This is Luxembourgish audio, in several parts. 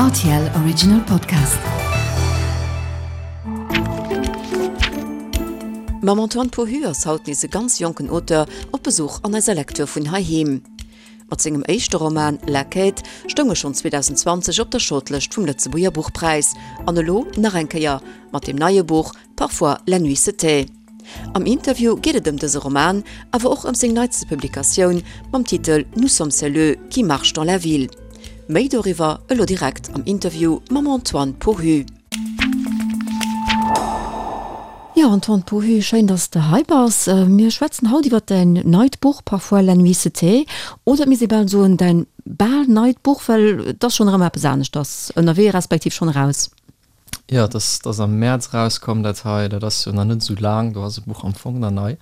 Rtl Original Podcast. Mam Antoine Pohu ass haut nees e ganz jonken Auteur op Besuch an eiser Lecture vun heiheem. Mat sengem éischte Roman La Quête stoung e schonn 2020 op der Shortlëscht vum Lëtzebuerger Buchpräis an elo nach eng Kéier mat dem neie Buch Parfois la nuit se tait. Am Interview geet et ëm dëse Roman, awer och ëm seng neitste Publikatioun mam Titel Nous sommes celles qui marchent dans la ville. Méi doriwwer elo direkt am Interview mam Antoine Pohu. Jo, Antoine Pohu, schéin, dass s de hei bass. Mir schwätzen haut iwwer däin neit Buch Parfois la nuit se tait, oder et misst ee bal soen, däin bal neit Buch, well et ass schonn erëm eppes aneschters ënnerwee, respektiv schonn eraus. Jo, et ass, et ass am Mäerz erauskomm, dat hei. Dat ass jo nach net esou laang, do ass e Buch am Fong nach nei.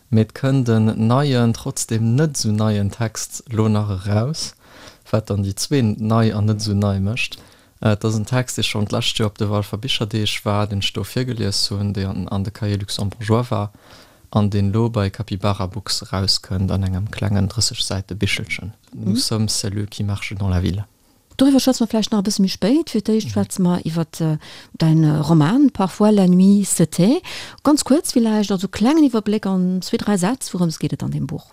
Mee et kënnt en neien, trotzdem net esou neien Text elo nach eraus, wat dann déi zwee nei an net esou nei mécht. Et ass en Text, dee schonn d'lescht Joer op de Walfer Bicherdeeg war, deen ech do virgelies hunn, dee an de Cahiers luxembourgeois war an deen elo bei Capybara Books erauskënnt an engem klengen 30 Säite Bichelchen, Nous sommes celles qui marchent dans la ville. Doriwwer schwätze mer vläicht nach e bësse méi spéit. Fir d'éischt schwätze mer iwwer däin Roman Parfois la nuit se tait. Ganz kuerz villäicht, also klengen Iwwerbléck an zwee, dräi Sätz, wourëms geet et an deem Buch?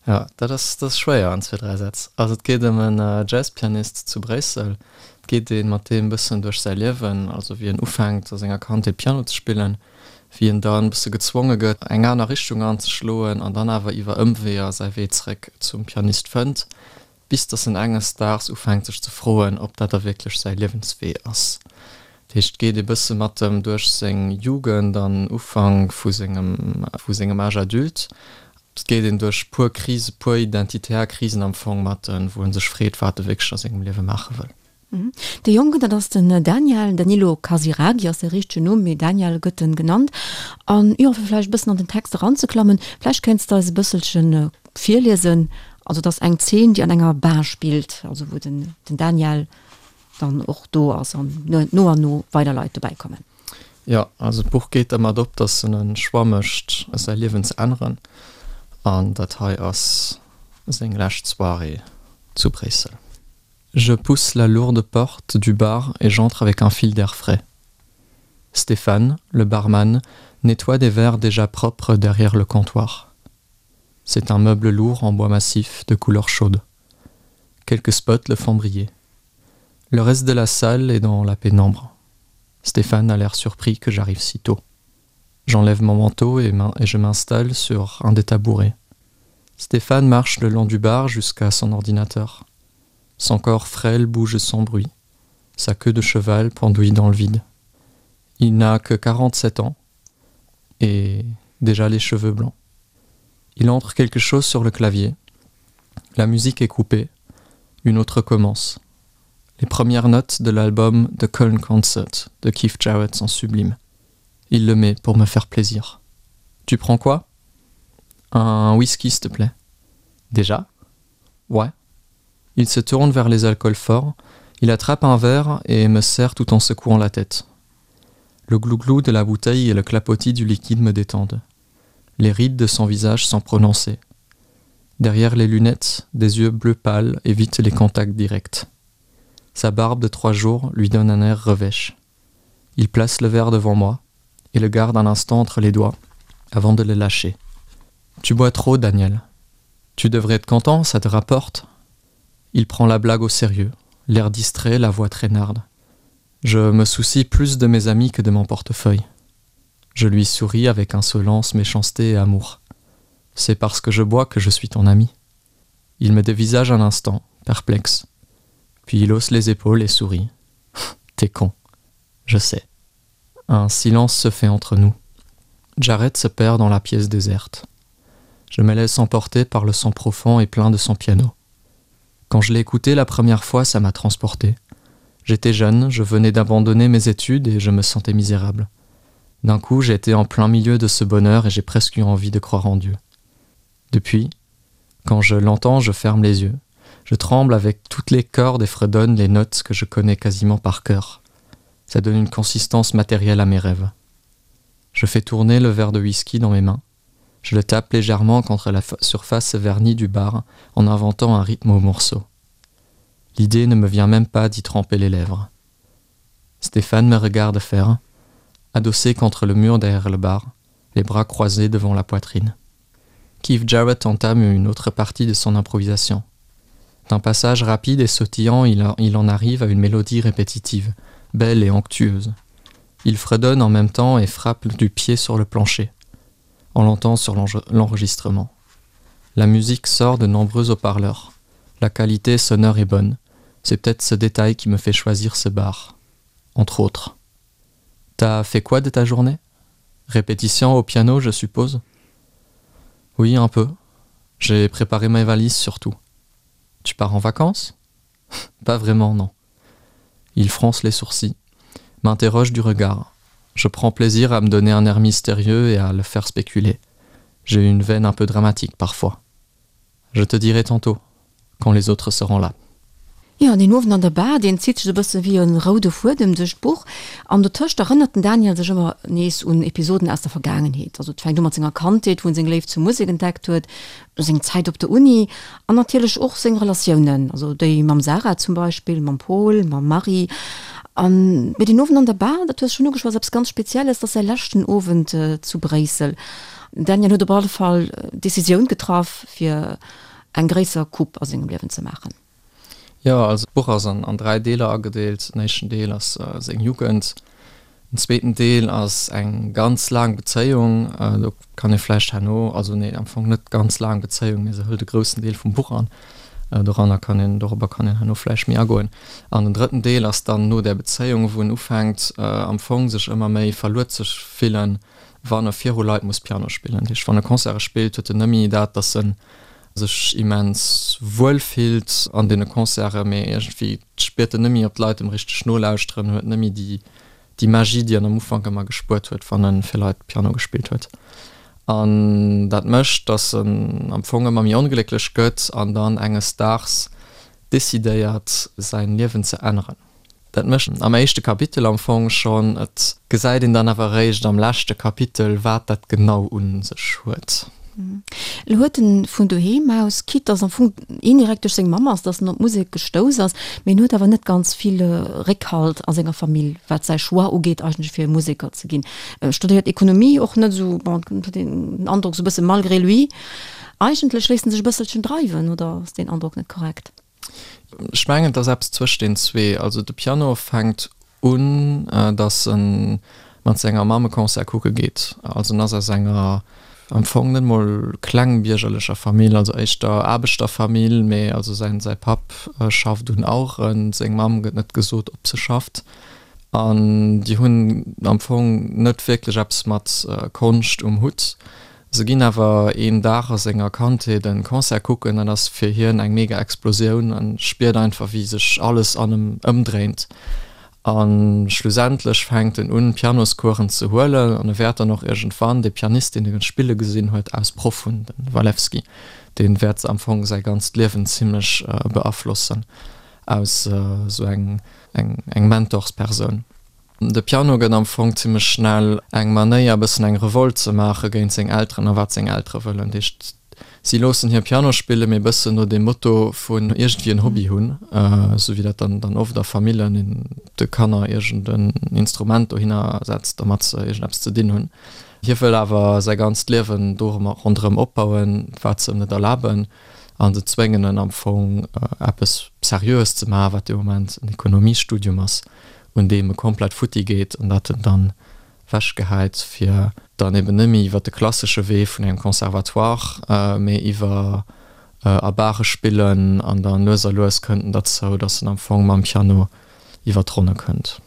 Jo, dat ass, dat ass schwéier an zwee, dräi Sätz. Also et geet ëm en Jazzpianist zu Bréissel. Et geet ee mat deem e bëssen duerch säi Liewen, also wéi en ufänkt a senger Kandheet Piano ze spillen, wéi en dann e bësse gezwonge gëtt eng aner Richtung anzeschloen an dann awer iwwer Ëmweeër säi Wee zeréck zum Pianist fënnt. Bis dass en enges Daags ufänkt sech ze froen, ob dat da wierklech säi Liewenswee ass. Dat heescht, et geet ee bësse mat em duerch seng Jugend an Ufank vu sengem vu sengem Âge adulte. Et geet een duerch puer Krise, puer identitär Krisen am Fong mat en, wou en sech freet, wat e wierklech a sengem Liewe maache wëll. De Jongen, dat ass den Daniel, Danilo Casiraghi ass säi richtegen Numm, mee Daniel gëtt en genannt. An jo, fir vläicht e bëssen an den Text eranzeklammen, vläicht kéints de eis e bësselche virliesen. Also et ass eng Zeen, déi an enger Bar spillt, also wou den Daniel dann och do ass an no an no weider Leit dobäi kommen. Jo, also d'Buch geet dermat op, datt en e Choix mécht, säi Liewen ze änneren. An dat hei ass seng lescht Soirée zu Bréissel. Je pousse la lourde porte du bar et j'entre avec un fil d'air frais. Stéphane, le barman, nettoie des verres déjà propres derrière le comptoir. C'est un meuble lourd en bois massif de couleur chaude. Quelques spots le font briller. Le reste de la salle est dans la pénombre. Stéphane a l'air surpris que j'arrive si tôt. J'enlève mon manteau et, et je m'installe sur un des tabourets. Stéphane marche le long du bar jusqu'à son ordinateur. Son corps frêle bouge sans bruit, sa queue de cheval pendouille dans le vide. Il n'a que 47 ans et déjà les cheveux blancs. Il entre quelque chose sur le clavier. La musique est coupée, une autre commence. Les premières notes de l'album The Köln Concert de Keith Jarrett sont sublimes. Il le met pour me faire plaisir. Tu prends quoi Un whisky, s'il te plaît. Déjà Ouais. Il se tourne vers les alcools forts, il attrape un verre et me serre tout en secouant la tête. Le glouglou de la bouteille et le clapotis du liquide me détendent. Les rides de son visage sont prononcées. Derrière les lunettes, des yeux bleu pâles évitent les contacts directs. Sa barbe de trois jours lui donne un air revêche. Il place le verre devant moi et le garde un instant entre les doigts avant de le lâcher. Tu bois trop, Daniel. Tu devrais être content, ça te rapporte. Il prend la blague au sérieux, l'air distrait, la voix traînarde. Je me soucie plus de mes amis que de mon portefeuille. Je lui souris avec insolence, méchanceté et amour. C'est parce que je bois que je suis ton ami. Il me dévisage un instant, perplexe. Puis il hausse les épaules et sourit. T'es con. Je sais. Un silence se fait entre nous. Jared se perd dans la pièce déserte. Je me laisse emporter par le son profond et plein de son piano. Quand je l'ai écouté la première fois, ça m'a transporté. J'étais jeune, je venais d'abandonner mes études et je me sentais misérable. D'un coup, j'étais en plein milieu de ce bonheur et j'ai presque eu envie de croire en Dieu. Depuis, quand je l'entends, je ferme les yeux. Je tremble avec toutes les cordes et fredonne les notes que je connais quasiment par cœur. Ça donne une consistance matérielle à mes rêves. Je fais tourner le verre de whisky dans mes mains. Je le tape légèrement contre la surface vernie du bar en inventant un rythme au morceau. L'idée ne me vient même pas d'y tremper les lèvres. Stéphane me regarde faire, adossé contre le mur derrière le bar, les bras croisés devant la poitrine. Keith Jarrett entame une autre partie de son improvisation. D'un passage rapide et sautillant, il, il en arrive à une mélodie répétitive, belle et onctueuse. Il fredonne en même temps et frappe du pied sur le plancher. On l'entend sur l'enregistrement. La musique sort de nombreux haut-parleurs. La qualité sonore est bonne. C'est peut-être ce détail qui me fait choisir ce bar. Entre autres. T'as fait quoi de ta journée Répétition au piano, je suppose Oui, un peu. J'ai préparé ma valise surtout. Tu pars en vacances Pas vraiment, non. Il fronce les sourcils, m'interroge du regard. Je prends plaisir à me donner un air mystérieux et à le faire spéculer. J'ai une veine un peu dramatique parfois. Je te dirai tantôt, quand les autres seront là. Jo, deen Owend an der Bar, deen zitt sech esou e bësse wéi e roude Fuedem duerch d'Buch. An dotëscht erënnert den Daniel sech ëmmer nees un Episoden aus der Vergaangenheet. Also et fänkt u mat senger Kandheet, wou en seng Léift zur Musek entdeckt huet, seng Zäit op der Uni an natierlech och seng Relatiounen, also déi mam Sarah zum Beispill, mam Paul, mam Marie. An, mee deen Owend an der Bar, dat hues schonn ugeschwat, ass eppes ganz Spezielles, dat ass säi leschten Owend zu Bréissel. Den Daniel huet op alle Fall d'Decisioun getraff, fir eng gréisser Coupe a sengem Liewen ze maachen. Jo, also d'Buch ass an 3 Deeler agedeelt. Den éischten Deel ass seng Jugend, den zweeten Deel ass eng ganz laang Bezéiung, do kann ee vläicht herno, also nee, am Fong net ganz laang Bezéiung, mee se hëlt e groussen Deel vum Buch an, doranner kann een, dorobber kann een herno vläicht méi agoen. An den drëtten Deel ass dann no där Bezéiung, wou en ufänkt am Fong sech ëmmer méi verluer ze fillen, wann e viru Leit muss Piano spillen. Dat heescht, wann e Concerte spillt, huet en net méi dat, datt en sech immens wuel fillt an deene Concerten, mee iergendwéi spiert en net méi, ob d'Leit em richteg nolauschteren, huet net méi déi, déi Magie, déi en am Ufank ëmmer gespuert huet, wann e fir Leit Piano gespillt huet. An dat mécht, datt en am Fong ëmmer méi onglécklech gëtt an dann enges Daags decidéiert, säin Liewen ze änneren. Dat mécht am éischte Kapitel am Fong schonn. Et gesäit een dann awer eréischt am leschte Kapitel, wat dat genau un sech huet. Elo huet en vun doheem aus, quitte dass am Fong indirekt duerch seng Mamm ass, dass en op d'Musek gestouss ass, mee en huet awer net ganz vill Réckhalt a senger Famill, wat säi Choix ugeet eigentlech fir Museker ze ginn. E studéiert Ekonomie, och net esou, bon, et huet een den Androck esou e bësse malgré lui. Eigentlech léisst en sech e bësselchen dreiwen, oder ass deen Androck net korrekt? Ech mengen, et ass eppes zwëscht den zwee. Also de Piano fänkt un, datt e mat senger Mamm e Concert kucke geet. Also en ass aus enger am Fong net mol klengbiergerlecher Famill, also éischter Aarbechterfamill, mee also säin säi Papp schafft un Aueren, seng Mamm gëtt net gesot, ob se schafft. An déi hunn am Fong net wierklech eppes mat Konscht um Hutt. Se ginn awer een Dag a senger Kandheet en Concert kucken, dat ass fir hien eng mega Explosioun an spiert einfach wéi sech alles an em ëmdréint. A schlussendlech fänkt en un Pianoscoursen ze huelen an e wäert dann och iergendwann dee Pianist deen e spille gesinn huet aus Proff hunn, den Walewski, dee wäert am Fong säi ganzt Liewen zimmlech beaflossen aus esou eng eng Mentorspersoun. De Piano gëtt am Fong zimmlech schnell eng Manéier e bëssen eng Revolt ze maache géint seng Elteren a wat seng Eltere wëllen. Dat heescht, si loossen hie Piano spillen, mee e bëssen no deem Motto vun iergendwéi en Hobby hunn, esou wéi dat dann dann oft a Famillen een de Kanner iergend en Instrument dohinner setzt, domat se iergendeppes ze dinn hunn. Hie wëll awer säi ganzt Liewen dorëmmer ronderëm opbauen, wat se ëm net erlaben, a se zwéngen en am Fong eppes Seriöes ze maachen, wat dee Moment en Ekonomiestudium ass. un deem e komplett futti geet an dat en dann wechgehäit, fir dann eben net méi iwwer de klassesche Wee vun engem Conservatoire, mee iwwer a Bare spillen an dann lues a lues kënnt en derzou, dass en am Fong mam Piano iwwer d'Ronne kënnt.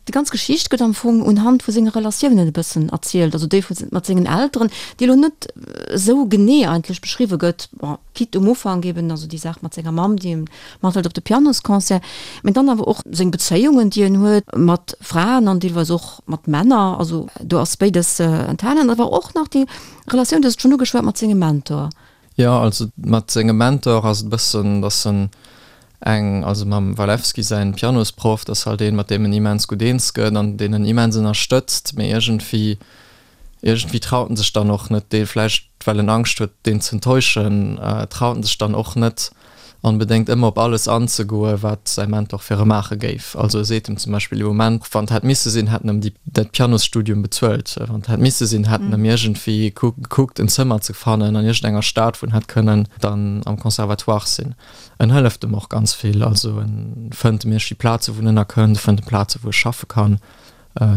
Déi ganz Geschicht gëtt am Fong unhand vu senge Relatiounen e bëssen erzielt, also déi vu mat sengen Elteren, déi elo net esou genee eigentlech beschriwwe gëtt, bon, quitte um Ufank eben, also déi Saach mat senger Mamm, déi em Mathilde op de Pianosconcert, mee dann awer och seng Bezéiungen, déi en huet mat Fraen an deelweis och mat Männer, also do ass béides enthalen, awer och nach déi Relatioun, du hues et schonn ugeschwat, mat sengem Mentor. Jo, also mat sengem Mentor ass et e bëssen, datt en eng, also mam Walewski säin Pianosproff, dat ass halt een, mat deem en immens gutt eens gëtt an deen en immens ënnerstëtzt, mee iergendwéi Iergendwéi traut en sech dann och net, dee vläicht well en Angscht huet, deen z'enttäuschen, traut en sech dann och net. Onbedéngt ëmmer op alles anzegoen, wat säi Mentor fir e maache géif. Also e seet em zum Beispill ee Moment, wann et hätt misse sinn, hätt en em déi, dat Pianosstudium bezuelt. Wann et hätt misse sinn, hätt en em iergendwéi gekuckt, en Zëmmer ze fannen an iergendenger Stad, wou en hätt kënnen dann am Conservatoire sinn. En hëlleft em och ganz vill. Also e fënnt em iergendwéi Plaze wou en ënnerkënnt, e fënnt em Plaze wou e schaffe kann,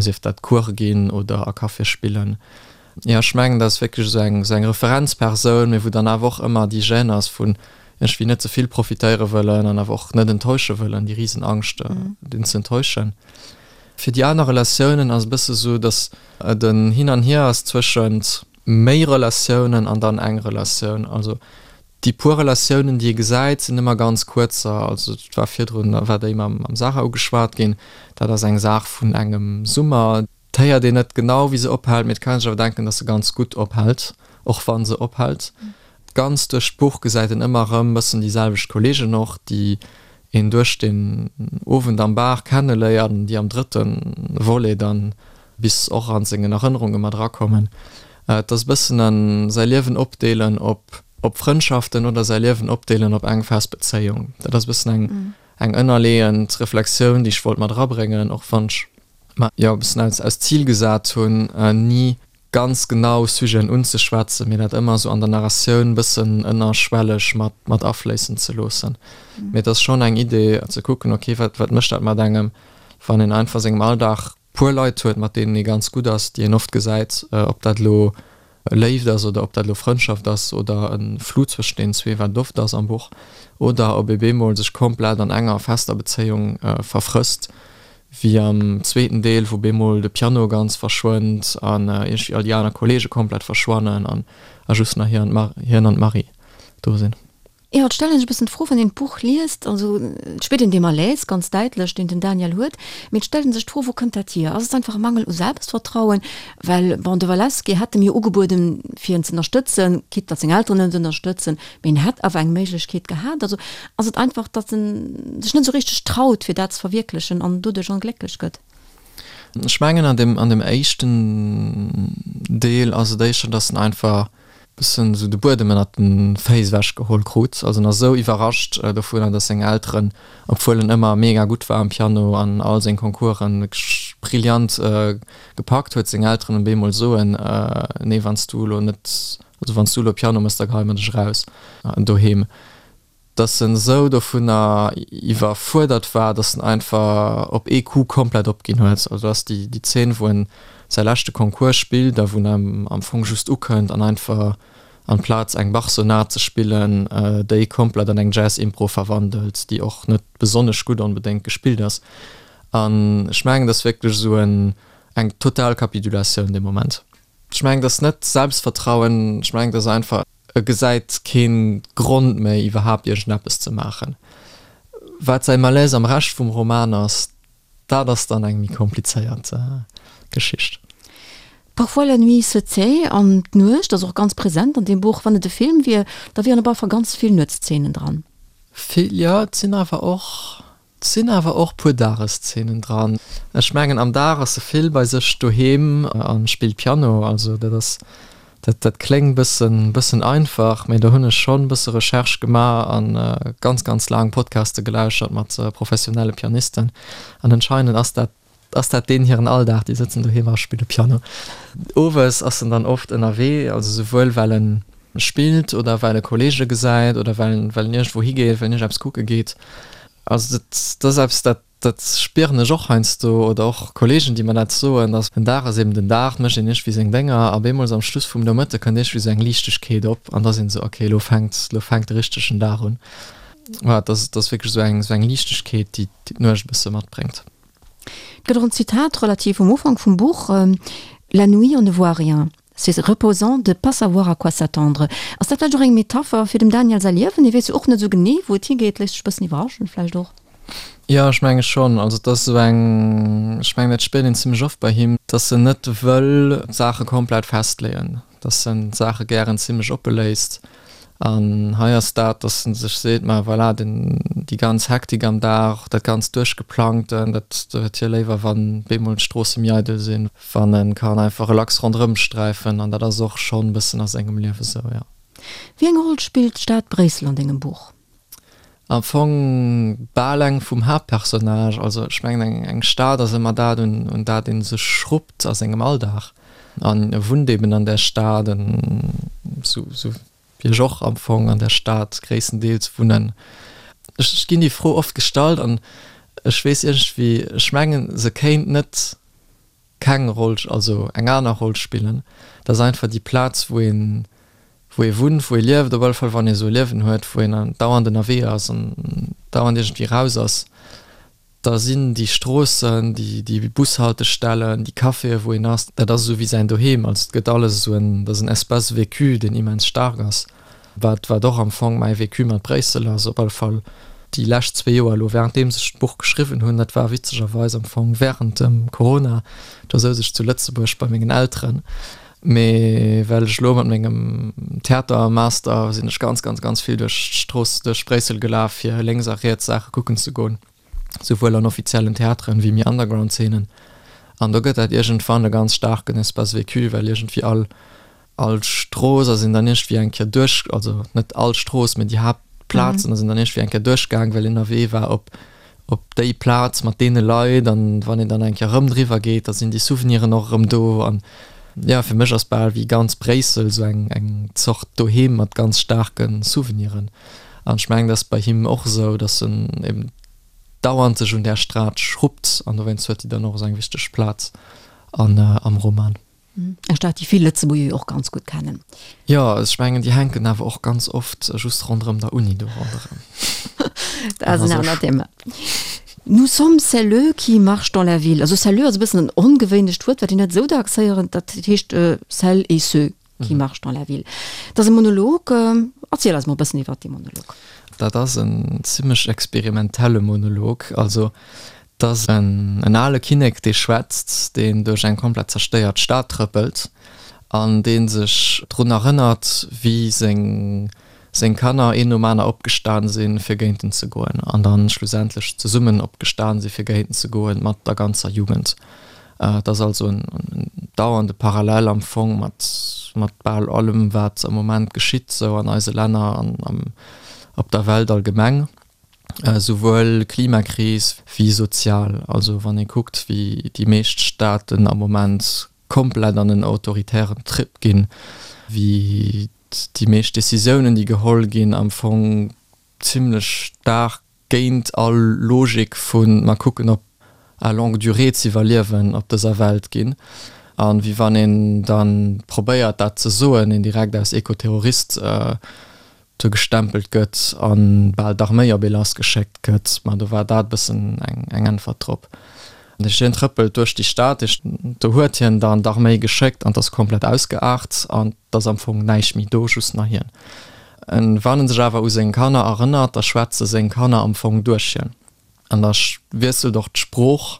sief dat Course ginn oder a Caféë spillen. Jo, ech mengen, dat ass wierklech esou eng, esou eng Referenzpersoun, mee wou dann awer och ëmmer déi Gêne ass vun iergendwéi net ze vill profitéiere wëllen an awer och net enttäusche wëllen, déi Risenangscht, deen ze enttäuschen. Fir déi aner Relatiounen ass e bësse esou, datt et en Hin an Hier ass zwëschent méi Relatiounen an dann eng Relatioun. Also déi puer Relatiounen, déi ee gesäit, sinn ëmmer ganz kuerzer. Also et war virdrun, war déi mam Sarah ugeschwat ginn, dat ass eng Saach vun engem Summer. 't héiert een net genau wéi se ophält, mee et kann een sech awer denken, dass se ganz gutt ophält, och wa se ophält. Ganz duerch d'Buch gesäit een ëmmer erëm bëssen déi selwecht Kollegen och, déi een duerch den Owend am Bar kenneléiert an déi am drëtte Volet dann bis och an sengen Erënnerunge mat erakommen. Et ass e bëssen en säi Liewen opdeelen op op Frëndschaften oder säi Liewen opdeelen op eng fest Bezéiung. Dat ass e bëssen eng eng ënnerleeënd Reflexioun, déi ech wollt mat erabréngen, och wann ech mer jo e bëssen als als Zil gesat hunn, ni ganz genau Sujeten unzeschwätzen, mee dat ëmmer esou an der Narratioun e bëssen ënnerschwelleg mat mat afléissen ze loossen. Mee et ass schonn eng Idee ze kucken, ok, wat wat mécht dat mat engem, wann een einfach a sengem Alldag puer Leit huet, mat deenen ee ganz gutt ass, déi een oft gesäit, ob dat elo Léift ass oder ob dat elo Frëndschaft ass oder e Flou zwëschen deenen zwee, wat et oft ass am Buch, oder ob ee bemol sech komplett an enger fester Bezéiung verfrësst, wéi am zweeten Deel, wou bemol de Piano ganz verschwënnt an iergendwéi all déi aner Kolleege komplett verschwannen an a just nach hien an d'Marie do sinn. Jo, et stellt een sech e bëssen d'Fro, wann een d'Buch liest, also et spiert een dee Malaise ganz däitlech, deen den Daniel huet, mee et stellt een sech d'Fro, wou kënnt dat hier? Ass et einfach e Mangel u Selbstvertrauen? Well, bon, de Walewski hätt em jo ugebueden, fir en z'ënnerstëtzen, quitte datt seng Elteren en net ënnerstëtzen, mee en hätt awer eng Méiglechkeet gehat. Also ass et einfach, datt en sech net esou richteg traut, fir dat ze verwierklechen an doduerch onglécklech gëtt? Ech mengen, an deem, an deem éischten Deel ass et éischter, datt en einfach bëssen esou de Buedem ënnert de Féiss ewech geholl krut. Also en ass esou iwwerrascht dovunner, dass seng Elteren, obwuel en ëmmer mega gutt war am Piano an all seng Concoursen wierklech brillant gepackt huet, seng Elteren op eemol soen, nee wann s du elo net, also wann s du elo Piano mëss, da geheie mer dech eraus doheem. dass en esou dovunner iwwerfuerdert war, dass en einfach op ee Coup komplett opginn huet. Also ass déi déi Zeen, wou en säi leschte Concours spillt a wou en am Fong just ukënnt an einfach amplaz eng Bach-Sonat ze spillen, déi komplett an eng Jazz-Impro verwandelt, déi och net besonnesch gutt onbedéngt gespillt ass. An ech mengen, dat ass wierklech esou en eng total Kapitulatioun dee Moment. Ech mengen, dat ass net Selbstvertrauen, ech mengen, dat ass einfach. E gesäit kee Grond méi, iwwerhaapt iergendeppes ze maachen. Wat säi Malaise am Rescht vum Roman ass, dat ass dann eng méi komplizéiert Geschicht. Parfois la nuit se tait, an d'Nuecht ass och ganz present an deem Buch. Wann et e Film wier, da wieren op alle Fall ganz vill Nuetszenen dran. Vill, jo. Et sinn awer och 't sinn awer och puer Dageszenen dran. Ech mengen am Dag ass se vill bei sech doheem a spillt Piano. Also dat ass, dat dat kléngt bëssen bëssen einfach, mee do hunn ech schonn bësse Recherche gemaach a ganz ganz laang Podcaste gelauschert mat professionelle Pianisten an anscheinend ass dat ass dat deen hiren Alldag, déi sëtzen doheem a spille Piano. Owes ass en dann oft ënnerwee, also souwuel well en spillt oder well e Kollege gesäit oder well en well en iergendwou higeet, well en iergendeppes kucke geet. Also dat dat ass eppes, dat dat spieren ech och heiansdo oder och Kollegen, déi mer dat soen, dass den Dag ass eben den Dag, et mécht een iergendwéi seng Dénger a bemools am Schluss vum Nomëtte kënnt iergendwéi esou eng Liichtegkeet op an da ass een esou, okay, elo fänkt elo fänkt de richtegen Dag un. Voilà, dat ass dat ass wierklech esou eng esou eng Liichtegkeet, déi déi d'Nuecht e bësse matbréngt. Et gëtt och en Zitat relativ um Ufank vum Buch, La nuit, on ne voit rien. C'est reposant de pas savoir à quoi s'attendre. Ass dat vläicht och eng Metapher fir dem Daniel säi Liewen? Hie weess jo och net esou genee, wou et higeet, léisst sech e bëssen iwwerraschen vläicht och. Jo, ech menge schonn. Also et ass esou eng, ech mengen dat spiert een zimmlech oft bei him, dass en net wëll d'Saache komplett festleeën. dass en d'Saache gären zimlech oppe léisst. An hei ass dat, dass en sech seet, ma voilà, den, déi ganz Hektik am Dag, dat ganz Duerchgeplangten, dat huet hie léiwer, wann bemol d'Stroosse méi eidel sinn, wann e kann einfach relax ronderëm sträifen. An dat ass och schonn e bëssen a sengem Liewe sou, jo. Wéi eng Roll spillt d'Stad Bréissel an dengem Buch? Am Fong bal eng vum Haaptpersonnage. Also ech mengen eng eng Stad ass ëmmer dat un un dat ee sech schruppt a sengem Alldag. An e wunnt eben an där Stad, en sou sou wéi ech och am Fong an där Stad gréisstendeels wunnen. Ech ech ginn déi Fro oft gestallt an ech weess iergendwéi, ech mengen se kéint net keng Roll, also eng aner Roll spillen. Dat ass einfach déi Plaz, wou een, wou ee wunnt, wou ee lieft, op alle Fall wann ee esou e Liewen huet, wou een dauernd ënnerwee ass an dauernd iergendwéi raus ass, da sinn déi Stroossen, déi, déi Bushaltestellen, déi Caféen, wou een ass, dat ass esou wéi säin Doheem. Also et gëtt alles esou en, dat ass en Espace vécu, deen immens staark ass. Wat, wat och am Fong mäi Vécu mat Bréissel ass, op alle Fall déi lescht zwee Joer elo, währenddeems ech d'Buch geschriwwen hunn, dat war witzegerweis am Fong während dem Corona, do souz ech zu Lëtzebuerg bei mengen Elteren, mee well ech elo mat mengem Theatermaster sinn ech ganz, ganz, ganz vill duerch d'Strooss, duerch Bréissel gelaf, fir lénks a riets Saache kucken ze goen, souwuel an offiziellen Theateren wéi méi Underground-Zeenen. An do gëtt dat iergendwann e ganz staarken Espace vécu, well iergendwéi all All Strooss ass een dann iergendwéi eng Kéier duerch, also net all Strooss, mee déi Haaptplazen ass een dann iergendwéi eng Kéier duerchgaang, well een ënnerwee war op, op déi Plaz mat deene Leit. An wann een dann eng Kéier erëm driwwer geet, da sinn déi Souveniren och erëm do. An jo, fir mech ass bal wéi ganz Bréissel esou eng, eng Zort Doheem mat ganz staarke Souveniren. An ech mengen, dat ass bei him och esou, datt en eben dauernd sech un där Stad schruppt an dowéinst huet déi dann och esou eng wichteg Plaz an, am Roman. Eng Stad, déi vill Lëtzebuerger jo och ganz gutt kennen. Jo, ech mengen, déi hänken awer och ganz oft just ronderëm der Uni do ronderëm. Dat ass en anert Thema. Nous sommes celles qui marchent dans la ville. Also celles ass e bëssen en ongewéinlecht Wuert, wat een net esou dacks héieren. Dat heescht celles et ceux qui marchent dans la ville. Dat ass e Monolog. Erziel eis mol e bëssen iwwert dee Monolog. Dat ass en zimmlech experimentelle Monolog. Also 't ass en ale Kinnek, dee schwätzt, deen duerch eng komplett zerstéiert Stad trëppelt an dee sech drun erënnert, wéi seng seng Kanner een nom aner opgestan sinn, fir géint en ze goen, an dann schlussendlech zesummen opgestan si fir géint en ze goen, mat der ganzer Jugend. Et ass also en dauernde Parallel am Fong mat mat bal allem, wat am Moment geschitt, sou an eise Länner an op der Welt allgemeng. Souwuel Klimakris wéi sozial. Also wann ee kuckt, wéi déi meescht Staaten am Moment komplett an en autoritären Trip ginn, wéi déi meescht Decisiounen, déi geholl ginn, am Fong zimlech staark géint all Logik vu mer kucken op à longue durée z'iwwerliewen op dëser Welt ginn. A wéi wann een da probéiert dat ze soen, een direkt als Ekoterrorist do gestempelt gëtt a bal d'Arméi op ee lassgeschéckt gëtt. Ma do war dat e bëssen eng Äntwert drop. Hien trëppelt duerch déi Stad, do huet hien dann d'Arméi geschéckt an 't ass komplett ausgeaart an 't ass am Fong näischt méi do, just nach hien. Wann en sech awer u seng Kanner erënnert, da schwätze seng Kanner am Fong duerch hien. An da wiesselt och d'Sprooch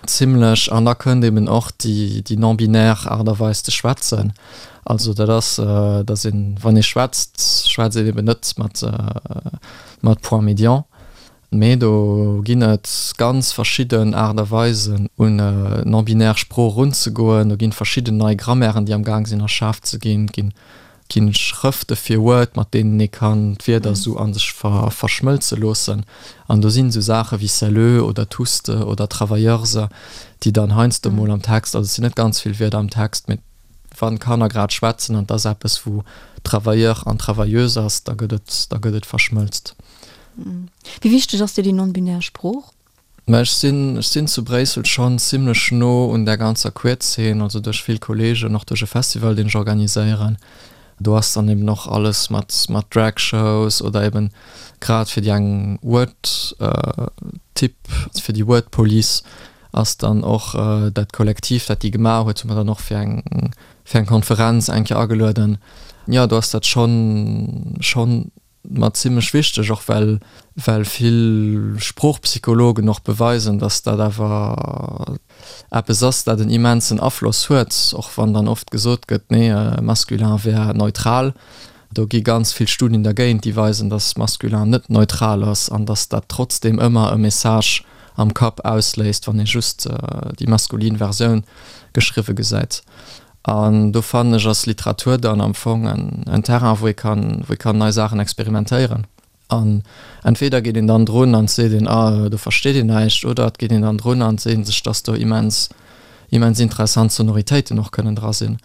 zimlech an da kënnt eben och déi déi non-binaire Aart a Weis ze schwätzen. Also dat ass, datt een, wann ee schwätzt, schwätzt een eben net mat mat Point médian, mee do ginn et ganz verschidden Aart a Weisen un non-binaire Sprooch erunzegoen. Do ginn verschidden nei Grammairen, déi am Gaang sinn erschaaft ze ginn. Et ginn ginn Schrëfte fir Word, mat deenen ee kann d'Wierder esou a sech verschmëlze loossen. An do sinn esou Saache wéi celleux oder touste oder travailleurse, déi dann heiansdo mol am Text, also et sinn net ganz vill Wierder am Text, mee wann d'Kanner grad schwätzen an et ass eppes wou travailleur an travailleuse ass, da gëtt et, da gëtt et verschmëlzt. Wéi wichteg ass dir déi non-binär Sprooch? Mä ech sinn, ech sinn zu Bréissel schonn zimlech no un där ganzer Queer-Zeen, also duerch vill Kolleegen, och duerch e Festival, deen ech organiséieren. Do ass dann eben och alles mat, mat Drag-Shows oder eben grad fir déi eng Word Typ, fir déi Word Police ass dann och dat Kollektiv, dat déi gemaach huet, hu mer dann och fir eng, fir eng Konferenz eng Kéier agelueden. Jo, do ass dat schonn, schonn Mer zimlech wichteg, och well well vill Sproochpsychologen och beweisen, datt dat awer eppes ass, dat en immensen Afloss huet, och wann dann oft gesot gëtt, nee, masculin wär neutral. Do gi ganz vill Studien dergéint, déi weisen, datt masculin net neutral ass an datt dat trotzdeem ëmmer e Message am Kapp ausléist, wann ee just déi maskulin Versioun geschriwwe gesäit. An do fannen ech ass Literatur dann am Fong en Terrain, wou ee kann, wou ee kann nei Saachen experimentéieren. An entweder geet een dann drun an et seet een, ah do versteet een näischt, oder et geet een dann drun an et seet een sech, dass do immens, immens interessant Sonoritéiten och kënnen dra sinn.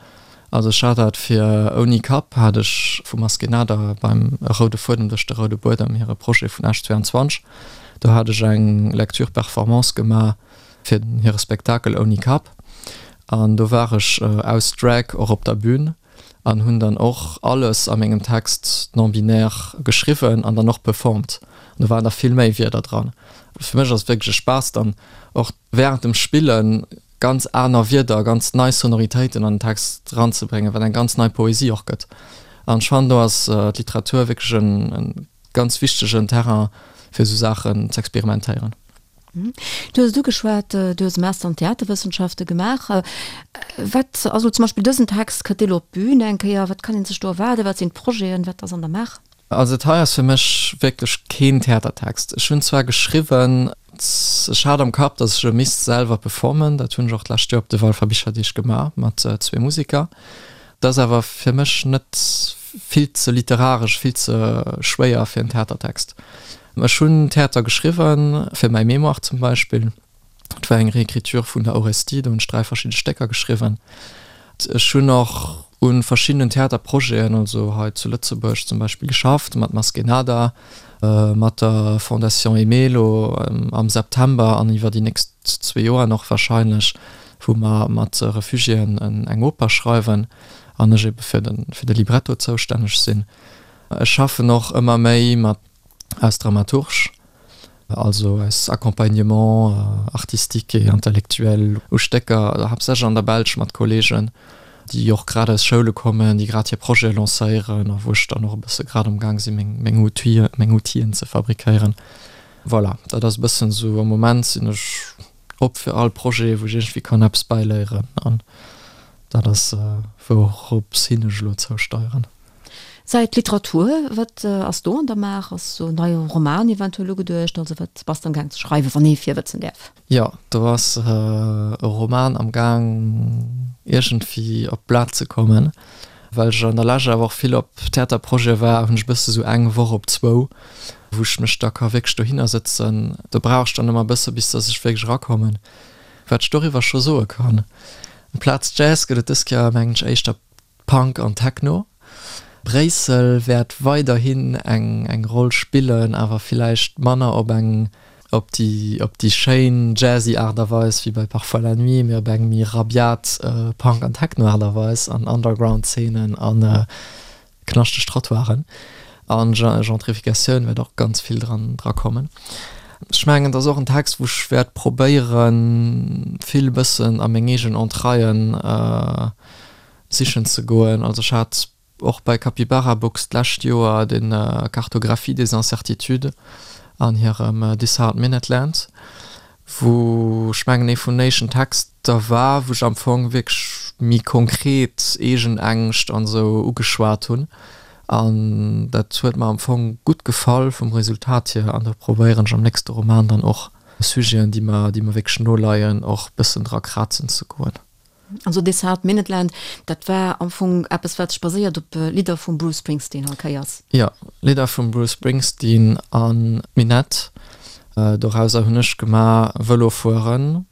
Also ech hat dat fir Ouni Kapp hat ech vu Maskénada beim E roude Fuedem duerch de roude Buedem, hire Projet vun Esch 22, do hat ech eng Lecture-Performance gemaach fir hire Spektakel Ouni Kapp an do war ech aus Drag och op der Bühn an hunn dann och alles a mengem Text non-binaire geschriwwen an dann och performt. An do waren da vill méi Wierder dran. Fir mech ass et wierklech e Spaass dann och während dem Spillen ganz aner Wierder, ganz nei Sonoritéiten an den Text eranzebréngen, wat eng ganz nei Poesie och gëtt. An ech fannen do ass d'Literatur wierklech e ganz wichtegen Terrain fir esou Saachen z'experimentéieren. Du hues et ugeschwat, du hues e Master an Theaterwëssenschafte gemaach. Wat ass elo zum Beispill dësen Text, kënnt dee elo op d'Bün eng Kéier? Wat kann ee sech do erwaarden? Wat sinn d'Projeten? Wat ass an der Maach? Also dat hei ass fir mech wierklech keen Theatertext. Ech hunn zwar geschriwwen, ech hat am Kapp, datt ech e misst selwer performen, dat hunn ech och d'lescht Joer op de Walfer Bicherdeeg gemaach mat zwee Museker. Dat ass awer fir mech net vill ze literaresch, vill ze schwéier fir en Theatertext. Ech hunn Theater geschriwwen, fir mäi Mémoire zum Beispill. Et war eng Réécriture vun der Orestie, do hunn ech 3 verschidde Stécker geschriwwen. Ech hunn och u verschiddenen Theaterprojeten, also hei zu Lëtzebuerg zum Beispill geschafft, mat Maskénada, mat der Fondation Aimée elo am September an iwwer déi nächst zwee Joer nach wahrscheinlech, wou mer mat Refugiéen eng Oper schreiwen an ech ebe fir de Libretto zoustänneg sinn. Ech schaffen och ëmmer méi mat aus Dramaturge, also aus Accompagnement artistique et intellectuel u Stécker, haaptsächlech an der Belsch mat Kollegen, déi och grad aus Schoule kommen, déi grad hir Projete lancéieren a wou ech dann och e bësse grad am Gaang sinn, meng, meng Outile, meng Outill'en ze fabriquéieren. Voilà, dat ass e bëssen esou, am Moment sinn ech op fir all Projet, wou ech iergendwéi kann eppes bäiléieren an dat ass wourops hin ech elo zousteieren. Säit Literatur, wat ass do an der Maach? Ass sou en neie Roman eventuell ugeduecht? Also wat bass de am Gaang ze schreiwen, wann ee virwëtzen däerf? Jo, do ass e Roman am Gaang iergendwéi op d'Blat ze kommen. Well ech an der Lescht awer och vill op Theaterprojete war, hunn ech e bësse sou eng Woch op zwou, wou ech mech da ka wierklech dohinner sëtzen. Do brauch ech dann ëmmer e bësse bis datt ech wierklech erakommen. Wat ech doriwwer scho soe kann, Amplaz Jazz gëtt et dës Kéier mengen ech éischter Punk an Techno. Bréissel wäert weiderhin eng eng Roll spillen, awer villäicht manner op eng op déi op déi schéin jazzy Aart a Weis wéi bei Parfois la nuit, mee op eng méi rabiat Punk an Techno Aart a Weis an Underground-Zeenen a knaschteg Trottoiren. An Gentrificatioun wäert och ganz vill dran dra kommen. Ech mengen, et ass och en Text, wou ech wäert probéieren, vill e bëssen a meng eegen Entraillen sichen ze goen. Also ech hat och bei Capybara Books d'lescht Joer den Cartographie des incertitudes an hirem This Hard Minute Land, wou ech mengen ee vun den éischten Texter war, wou ech am Fong wierklech méi konkret eegen Ängscht an esou ugeschwat hunn. An dat huet mer am Fong gutt gefall vum Resultat hier an do probéieren ech am nächste Roman dann och Sujeten, déi mer, déi mer wierklech no leien, och bëssen dra krazen ze goen. Also This Hard Minute Land, dat war am Fong eppes wat sech baséiert op Lidder vum Bruce Springsteen all Kéiers. Jo, Lidder vum Bruce Springsteen an Minette. Dorauser hunn ech gemaach Vëlo fueren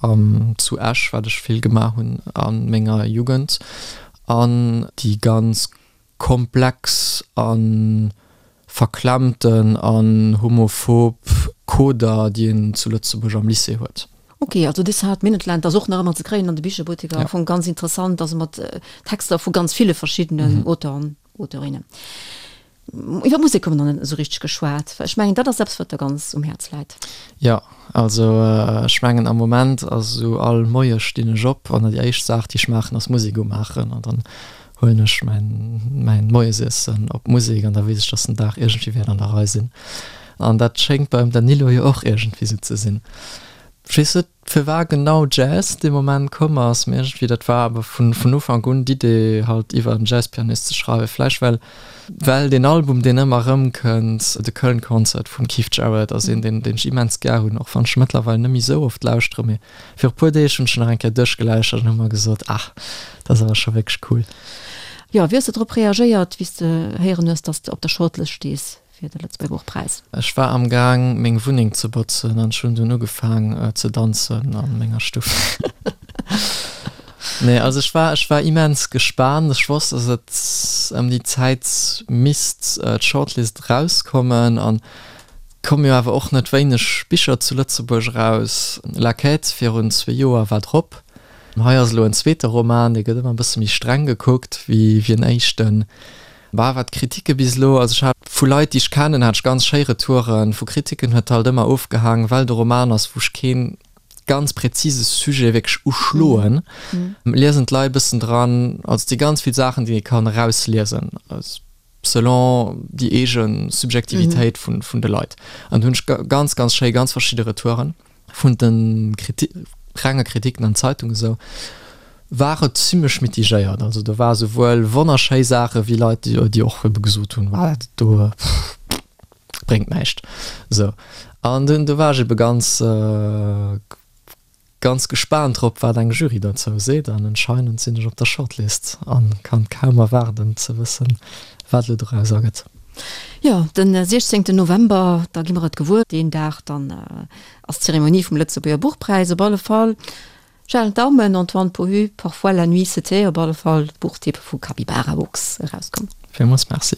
am zu Esch, wat ech vill gemaach hunn a menger Jugend an déi ganz komplex a verklemmten an homophob Coder, déi een zu Lëtzebuerg am Lycée huet. Ok, also This Hard Minute Land ass och nach ëmmer ze kréien an de Bicherbutteker. Am Fong ganz interessant, also mat Texter vu ganz ville verschiddenen Auteuren, Auteurinnen. Iwwer Musek hu mer nach net esou richteg geschwat. Ech mengen, dat ass eppes, wat der ganz um Häerz läit. Jo, also ech mengen am Moment ass esou, all Moie stinn ech op an déi éischt Saach, déi ech maachen, ass Musek umaachen an dann huelen ech mäin mäin Moiesiessen op Musek an da weess ech, dass den Dag iergendwéi wäert an der Rei sinn. An dat schéngt beim Danilo jo och iergendwéi esou ze sinn. Ech weess net, firwar genau Jazz dee Moment komm ass, mee iergendwéi dat war awer vun vun Ufank un d'Idee halt iwwer en Jazzpianist ze schreiwen. Vläicht well well deen Album deen ëmmer erëmkënnt, The Köln Concert vum Keith Jarrett ass een deen deen ech immens gär hunn, och wann ech mëttlerweil net méi esou oft lauschtere, mee viru puer Deeg hunn ech en nach eng Kéier duerchgelauschtert an hu mer gesot, ah dat ass awer scho wierklech cool. Jo, wéi hues de drop reagéiert wéi s de héieren hues, dass de op der Shortlist stees? fir de Lëtzebuerger Buchpräis? Ech war am Gaang meng Wunneng ze botzen an ech hunn dunn ugefaang ze danzen an menger Stuff. Nee, also ech war, ech war immens gespaant. Ech wosst, dass et ëm déi Zäit misst d'Shortlist erauskommen an et komme jo awer och net wéineg Bicher zu Lëtzebuerg eraus. La Quête virun zwee Joer war drop. Hei ass elo en zweete Roman, dee gëtt ëmmer e bësse méi streng gekuckt wéi en éischten. Bah, wat d'Kritike bis elo, also ech hat vu Leit, déi ech kennen, hat ech ganz schéi Retouren. Vu Kritiken huet halt ëmmer ofgehaang, well de Roman ass, wou ech kee ganz präzise Sujet wierklech uschloen, liesen d'Leit e bëssen dran. Also et si ganz vill Saachen, déi ee kann erausliesen, selon déi eege Subjektivitéit vun de Leit. An do hunn ech ganz, ganz schéi, ganz verschidde Retouren. Vun de renge Kritiken an Zeitungen esou war et zimlech mitigéiert. Also do war souwuel wonnerschéi Saache wéi Leit, déi och ebe gesot hunn, Wa dat do bréngt näischt. Esou an dunn do war ech ebe ganz ganz gespaant drop, wat eng Jury dozou seet. An anscheinend sinn ech op der Shortlist an kann kaum erwaarden ze wëssen, wat elo doraus ergëtt. Jo, den 16 November, da gi mer et gewuer. Deen Dag dann ass d'Zeremonie vum Lëtzebuerger Buchpräis. Op alle Fall, ech halen d'Daumen, Antoine Pohu, Parfois la nuit se tait, op alle Fall Buchtipp vu Capybara Books erauskomm. Villmools Merci.